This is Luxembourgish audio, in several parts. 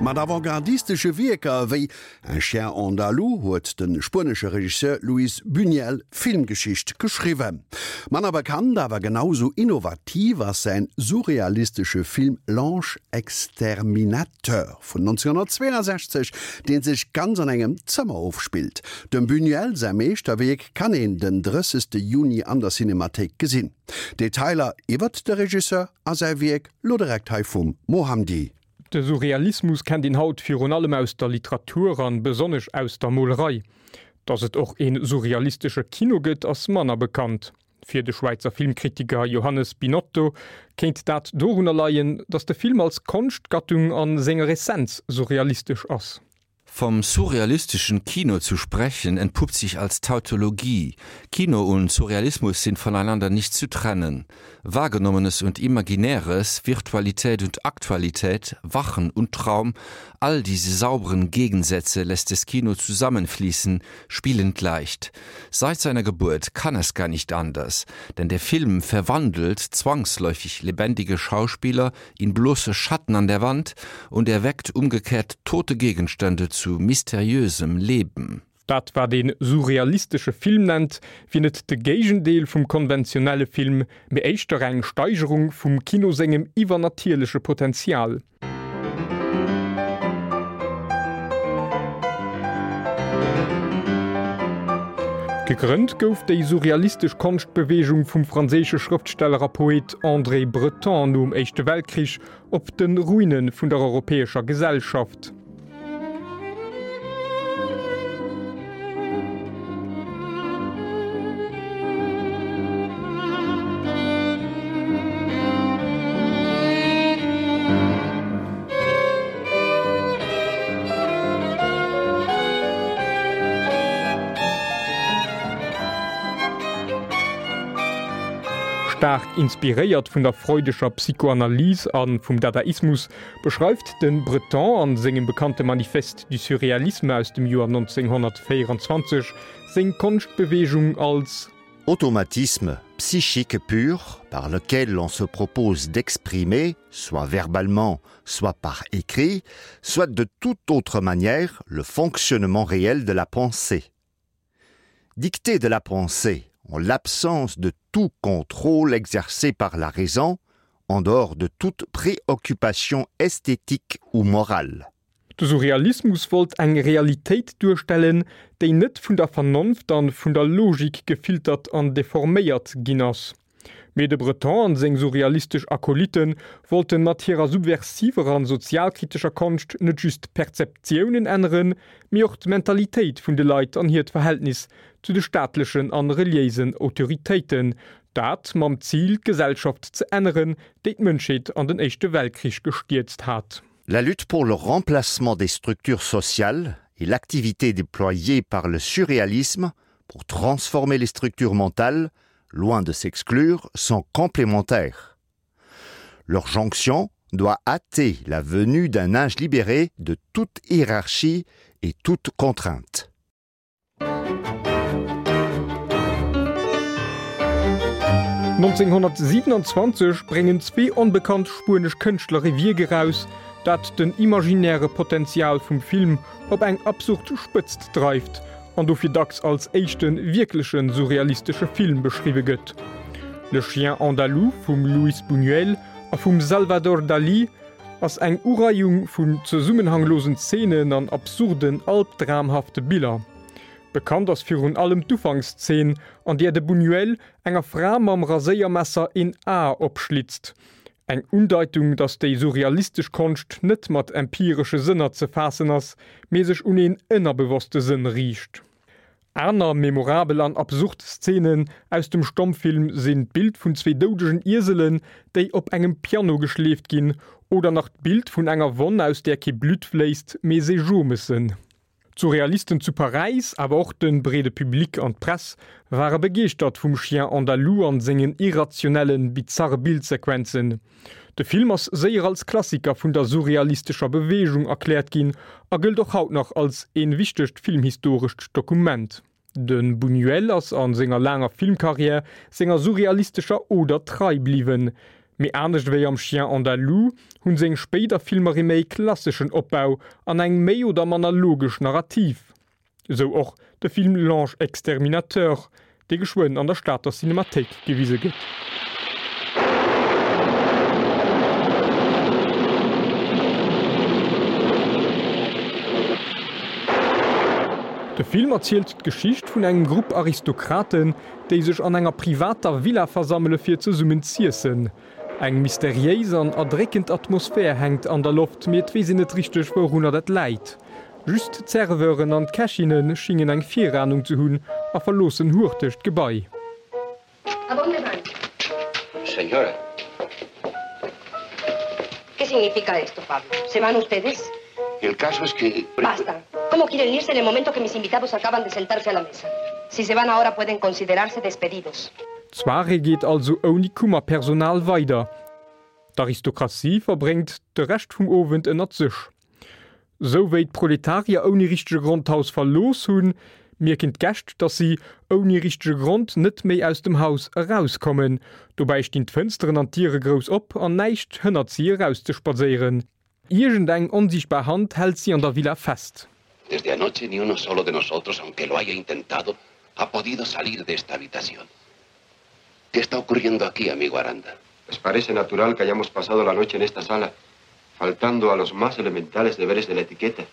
Mat avantgardistesche Wierker wéi Un chien andalou huet de spuenesche Regisseur Luis Buñuel Filmgeschicht geschriwwen. Manner bekannt, awer genau sou innovativ ass säin surrealistesche Film L'Ange exterminateur vun 1962, dee sech ganz an engem Zëmmer ofspillt. Dem Buñuel säi Meeschterwierk kann een den 30. Juni an der Cinemathéik gesinn. Detailer iwwert de Regisseur a säi Wierk lo direkt hei vum Mohamdi. De Surrealismus kennt een haut virun allem aus der Literatur an besonnesch aus der Molerei. Datt et och een surrealistesche Kino gëtt, ass manner bekannt. Fir de Schwäizer Filmkritiker Johannes Binotto kéint dat dorunner leien, datt de Film als Konschtgattung an senger Essenz surrealistesch ass. Vom surrealistischen Kino zu sprechen, entpuppt sich als Tautologie. Kino und Surrealismus sind voneinander nicht zu trennen. Wahrgenommenes und Imaginäres, Virtualität und Aktualität, Wachen und Traum, all diese sauberen Gegensätze lässt das Kino zusammenfließen, spielend leicht. Seit seiner Geburt kann es gar nicht anders, denn der Film verwandelt zwangsläufig lebendige Schauspieler in bloße Schatten an der Wand und erweckt umgekehrt tote Gegenstände zu mysteriösem Leben. Dat wat een surrealistesche Film nennt, wier net de Géigendeel vum konventionelle Film, mee éischter eng Steigerung vum Kino sengem iwwernatierleche Potenzial. Gegrënnt gouf déi surrealistesch Konschtbeweegung vum franséische Schrëftsteller a Poet André Breton nom Éischte Weltkrich op de Ruine vun der europäescher Gesellschaft. Staark inspiréiert vun der freudescher Psychoanalyse a vum Dadaismus beschreift de Breton an sengem bekannte Manifeste du surréalisme aus dem Joer 1924 seng Konschtbeweegung als. Automatisme psychique pur par lequel l'on se propose d'exprimer, soit verbalement, soit par écrit, soit de toute autre manière le fonctionnement réel de la pensée. Dicté de la pensée en l'absence de tout contrôle exercé par la raison, en dehors de toute préoccupation esthétique ou morale. De Surrealismus wollt eng Realitéit duerstellen, déi net vun der Vernonft an vun der Logik gefiltert an deforméiert ginn ass. Mee de Breton an seng surrealistesch Akolyten wollten mat hirer subversiver an sozialkritescher Konscht net just d'Perzeptiounen änneren, mee och d'Mentalitéit vun de Leit an hiert Verhältnis zu de staatlechen an reliéisen Autoritéiten, dat mam Zil d'Gesellschaft ze änneren, déi d'Mënschheet an den Éischte Weltkrich gestierzt hat. La lutte pour le remplacement des structures sociales et l'activité déployée par le surréalisme pour transformer les structures mentales, loin de s'exclure, sont complémentaires. Leur jonction doit hâter la venue d'un âge libéré de toute hiérarchie et toute contrainte. 1927 bréngen zwee onbekannt spuenesch Kënschtler e Wierk eraus, dat den imaginäre Potenzial vum Film op eng absurd Spëtzt dreift an dofir dacks als éischte wierkleche surrealistesche Film beschriwwe gëtt. Le Chien andalou vum Luis Buñuel a vum Salvador Dalí ass eng Ureiung vun zesummenhanglosen Zeenen an absurden, albdramhafte Biller. Bekannt ass virun allem d'Ufankszeen, an där de Buñuel enger Fra mam Raséiermesser een A opschlitzt. Eng Undeitung, datt déi surrealistesch Konscht net mat empiresche Sënner ze faassen ass, mee sech un een ënnerbewosste Sënn riicht. Aner memorabel an absurd Szenen aus dem Stommfilm sinn d'Bild vun zwee doudegen Ieselen, déi op engem Piano geschleeft ginn, oder nach d'Bild vun enger Wonn, aus där kee Blutt fléisst, mee Seejomessen. D'Surrealisten zu Paräis, awer och de breede Public an d'Press ware begeeschtert vum Chien andalou an sengen irrationellen, bizarre Bildsequenzen. De Film ass séier als Klassiker vun der surrealistescher Beweegung erkläert ginn a gëllt och haut nach als een wichtegt filmhistorescht Dokument. De Buñuel ass a senger laanger Filmkarriär senger surrealistescher Oder trei bliwwen. Mee anescht ewéi am Chien andalou hunn seng spéider Filmer ee méi klasseschen Opbau an eng méi oder manner logesch Narrativ. Esou och de Film L'Ange exterminateur, dee geschwënn an der Stater Cinemathéik gewise gëtt. De Film erzielt d'Geschicht vun engem Grupp Aristokraten, déi sech an enger privater Villa versammele fir zesummen z'iessen. Eng mysteriéis an erdréckend Atmosphär hänkt an der Loft, mee et weess een net richteg wourunner dat läit. Just d'Serveuren an d'Kächinne schingen eng Viranung ze hunn a verloossen hurteg d'Gebai. A dónde van? Señora. ¿Qué significa esto, Pablo? ¿Se van ustedes? El caso es que... Basta. ¿Cómo quieren irse en el momento que mis invitados acaban de sentarse a la mesa? Si se van ahora pueden considerarse despedidos. D'Soirée geet also ouni Kummerpersonal weider. D'Aristokratie verbréngt de Rescht vum Owend ënnert sech. Sou wéi d'Proletarier ouni richtege Grond d'Haus verlooss hunn, mierken d'Gäscht, dass si ouni richtege Grond net méi aus dem Haus erauskommen. Dobäi stinn d'Fënsteren an d'Diere grouss op an näischt hënnert si erauszespadséieren. Iergendeng onsiichtbar Hand hält si an der Villa fest. Desde anoche ni uno solo de nosotros, aunque lo haya intentado, ha podido salir de esta habitación. ¿Qué está ocurriendo aquí, amigo Aranda? Les parece natural que hayamos pasado la noche en esta sala, faltando a los más elementales deberes de la etiqueta,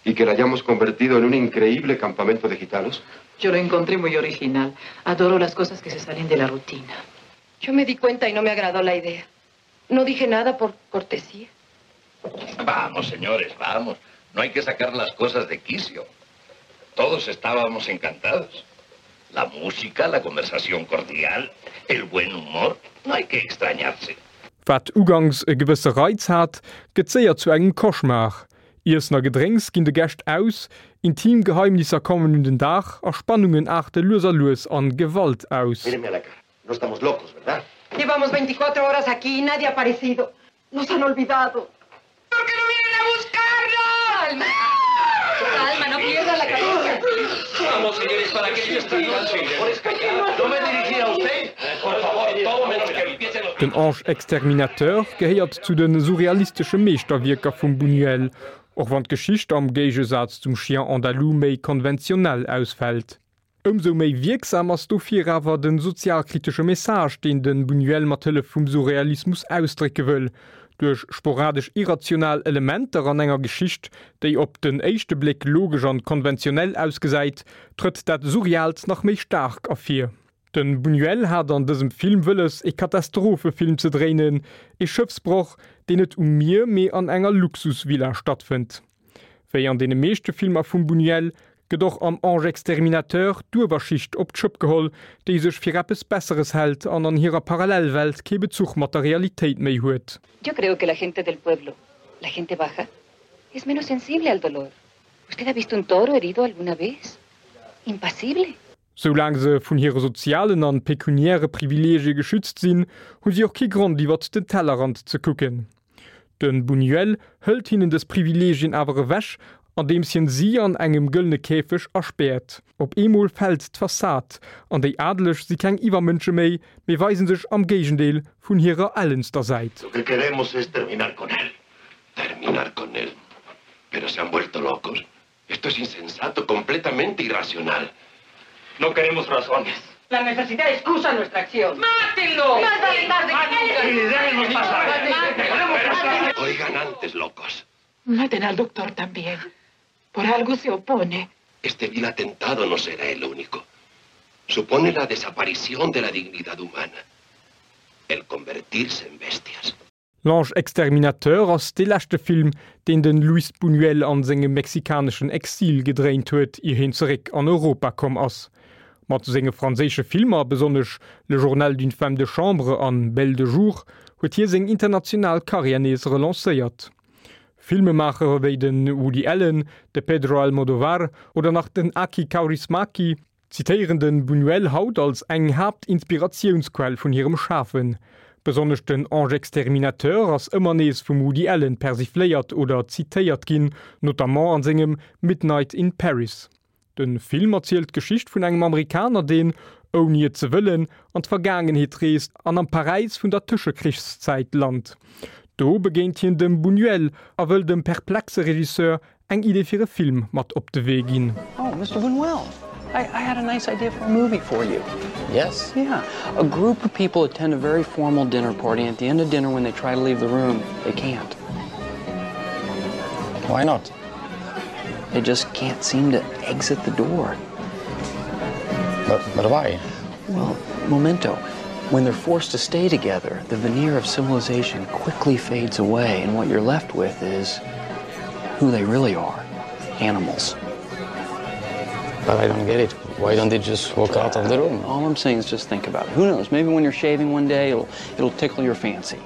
y que la hayamos convertido en un increíble campamento de gitanos? Yo lo encontré muy original. Adoro las cosas que se salen de la rutina. Yo me di cuenta y no me agradó la idea. No dije nada por cortesía. Vamos, señores, vamos. No hay que sacar las cosas de quicio. Todos estábamos encantados. La música, la conversación cordial, el buen humor, no hay que extrañarse. Wat ugangs e gewësse Reiz hat, gëtt séier zu engem Cauchemar. Iessen a Gedrénks ginn de Gäscht aus, intim Geheimnisser kommen un den Dag a Spannungen aarte lues a lues an Gewalt aus. Míreme a la cara. No estamos locos, ¿verdad? Llevamos 24 horas aquí y nadie ha aparecido. Nos han olvidado. ¿Por qué no vienen a buscarnos? Calma. Calma, no pierda la cabeza. Vamos, señores, para que esta noche. No me dirigí a usted. Por favor, todo menos que empiecen los... Den Ange Exterminateur gehéiert zu de surrealistesche Meeschterwierker vum Buñuel, och wann d'Geschicht am Géigesaz zum Chien andalou méi konventionell ausfält. Ëmsou méi wierksam ass dofir awer de sozialkritesche Message, deen de Buñuel mat Hëllef vum Surrealismus ausdrécke wëll. Duerch sporadesch irrational Elementer an enger Geschicht, déi op den éischte Bléck logesch an konventionell ausgesäit, trëtt dat Surreaalt nach méi staark ervir. De Buñuel hat an dësem Film wëlles, e Katastrophefilm ze dréinen, e Schëffsbroch, deen net um Mier, mee an enger Luxusvilla stattfënnt. Wéi an deene meeschte Filmer vum Buñuel gëtt och am Ange exterminateur d'Uewerschicht op d'Schëpp geholl, déi sech fir eppes Besseres hält an an hirer Parallelwelt kee Bezuch mat der Realitéit méi huet. Yo creo que la gente del pueblo, la gente baja, es menos sensible al dolor. Usted ha visto un toro herido alguna vez? Impasible. Soulaang se vun hire sozialen an pekuniäre Privileegie geschützt sinn, hu si och kee Grond iwwert den Tellerrand ze kucken. De Buñuel hëlt hinnen dës Privileegien awer ewech, andeems hien si an engem gëllene Käfeg aspäert. Op eemol fält d'Fassad, an déi Adeleg si keng Iwwermënsche méi, mee weisen sech am Géigendeel vun hirer ellenster Säit. Lo que queremos es terminar con él. Terminar con él. Pero se han vuelto locos. Esto es insensato, completamente irracional. No queremos razones. La necesidad excusa nuestra acción. ¡Mátenlo! ¡Más vale tarde que nunca! pasar! Oigan antes, locos. Maten al doctor también. Por algo se opone. Este vil atentado no será el único. Supone la desaparición de la dignidad humana. El convertirse en bestias. L'Ange exterminateur ass dee leschte Film, deen de Luis Buñuel an sengem mexikaneschen Exil gedréint huet, ier hien zeréck an Europa komm ass. Mat senge franséische Filmer, besonnesch Le journal d'une femme de chambre an Belle de jour, huet hie seng international Karriär nees relancéiert. Filmemaacher wéi de Woody Allen, de Pedro Almodovar oder nach den Aki Kaurismäki zitéieren de Buñuel haut als eng Haaptinspiratiounsquell vun hirem Schafen. Besonnesch den Ange exterminateur ass ëmmer nees vum Woody Allen persifléiert oder zitéiert ginn, notamment an sengem Midnight in Paris. De Film erzielt d'Geschicht vun engem Amerikaner, deen, ouni et ze wëllen, an d'Vergaangenheet reest an am Paräis vun der Tëschekrichszäit lant. Do begéint hien dem Buñuel a wëll dem perplexe Regisseur eng Idee fir e Film mat op de Wee ginn. Oh, Mister Buñuel, I, I had a nice idea for a movie for you. Yes? Yeah. A group of people attend a very formal dinner party and at the end of dinner when they try to leave the room, they can't. Why not? They just can't seem to exit the door. But, but why? Well, memento. When they're forced to stay together, the veneer of civilization quickly fades away and what you're left with is who they really are, animals. But I don't get it. Why don't they just walk out of the room? All I'm saying is just think about it. Who knows? Maybe when you're shaving one day, it'll, it'll tickle your fancy.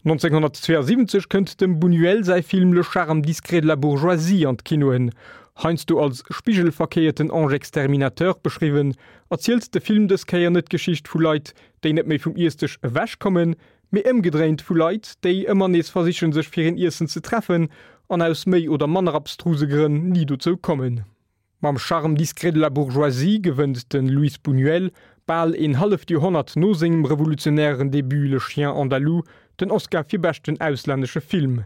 1972 kënnt dem Buñuel säi Film Le charme discret de la bourgeoisie an d'Kinoen. Heiansdo als spigelverkéierten Ange exterminateur beschriwwen, erzielt de Film dës Kéier net d'Geschicht vu Leit, déi net méi vum Iessdësch ewechkommen, mee ëmgedréint vu Leit, déi ëmmer nees versichen, sech fir een Iessen ze treffen an aus méi oder manner abstruse Grënn ni dozou kommen. Mam Charme discret de la bourgeoisie gewënnt de Luis Buñuel, bal een halleft Joerhonnert no sengem revolutionären Debut Le Chien andalou, den Oscar fir beschten auslännesche Film.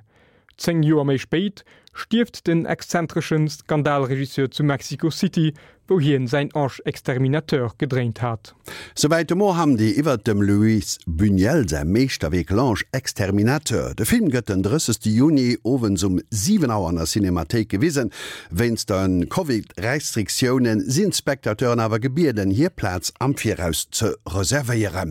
10 Joer méi spéit stierft den exzentresche Skandalregisseur zu Mexico City, wou hien säin Ange exterminateur gedréint hat. Souwäit de Mo Hamdi iwwert dem Luis Buñuel säi Meeschterwierk L'Ange exterminateur. De Film gëtt den 30 Juni owends um 7 Auer an der Cinemathéik gewisen. Wéinst de Covid-Restriktioune sinn d'Spectateuren awer gebieden, hir Plaz am Viraus ze reservéieren.